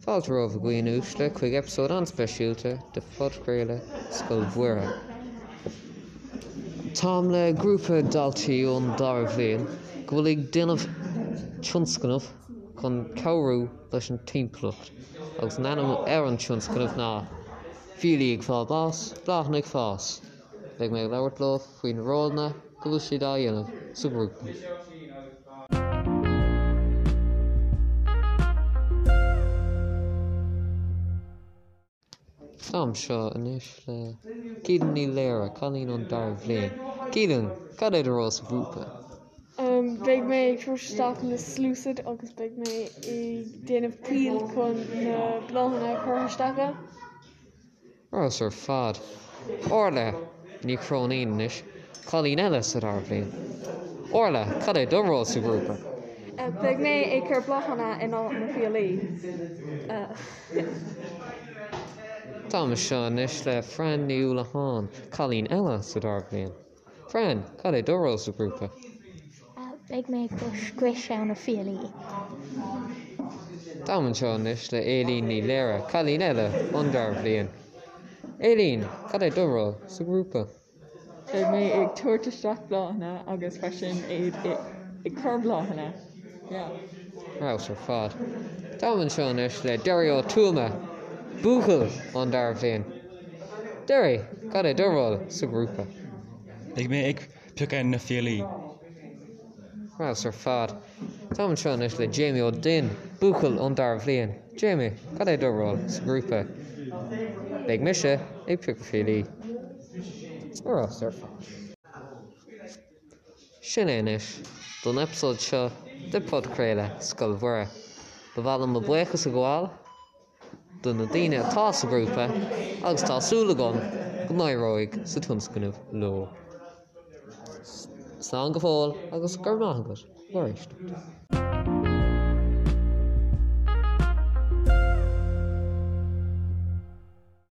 Fáilte romhaibh a dhaoine uaisle chuig eipeasóid an-speisialta de phodchraoladh Scoil Mhuire. Táim le grúpa daltaí ón dara bhliain go bhfuil ag déanamh tionscnamh chun cabhrú leis an timpeallacht agus an ainm ar an tionscnamh ná Fiailí ag fáil bás, Bláthanna ag Fás. Beidh mé ag labhairt leo faoi na rólanna go bhfuil siad á dhéanamh sa ghrúpa. Tá anseo anois le Keelan Ní Laoire, cailín ón dara bhliain. Keelan, cad é do ról sa ghrúpa? Beidh mé ag tabhairt isteach na sluasaid agus beidh mé ag déanamh poill chun na bláthanna a chur isteach ann. Ar fheabhas ar fad. Orla Ní Chróinín anois, cailín eile sa dara bhliain. Orla, cad é do ról sa ghrúpa? Beidh mé ag cur bláthanna in áit na fiailí. Táim anseo anois le Fran Ní Uallacháin, cailín eile sa dara bhliain. Fran, cad é do ról sa ghrúpa? Beidh mé ag scriosadh na fiailí. Táim anseo anois le Aileen Ní Laoire, cailín eile ón dara bhliain. Aileen, cad é do ról sa ghrúpa? Beidh mé ag tabhairt isteach bláthanna agus freisin ag cur bláthanna. Yeah. Ar fheabhas ar fad. Táim anseo anois le Derry Ó Tuama, buachaill ón dara bhliain. Derry, cad é do ról sa ghrúpa? Beidh mé ag piocadh na fiailí. Ar fheabhas ar fad. Táim anseo anois le Jamie Ó Duinn, buachaill ón dara bhliain. Jamie, cad é do ról sa ghrúpa? Beidh mise ag piocadh fiailí. Ar fheabhas ar fad. Sin é anois don eipeasóid seo de Podchraoladh Scoil Mhuire. Ba mhaith liom mo buíochas a ghabháil. do na daoine atá sa ghrúpa agus tá súil agam go n-éireoidh sa tionscnamh leo. Slán go fóill agus go raibh maith agat mar éisteacht.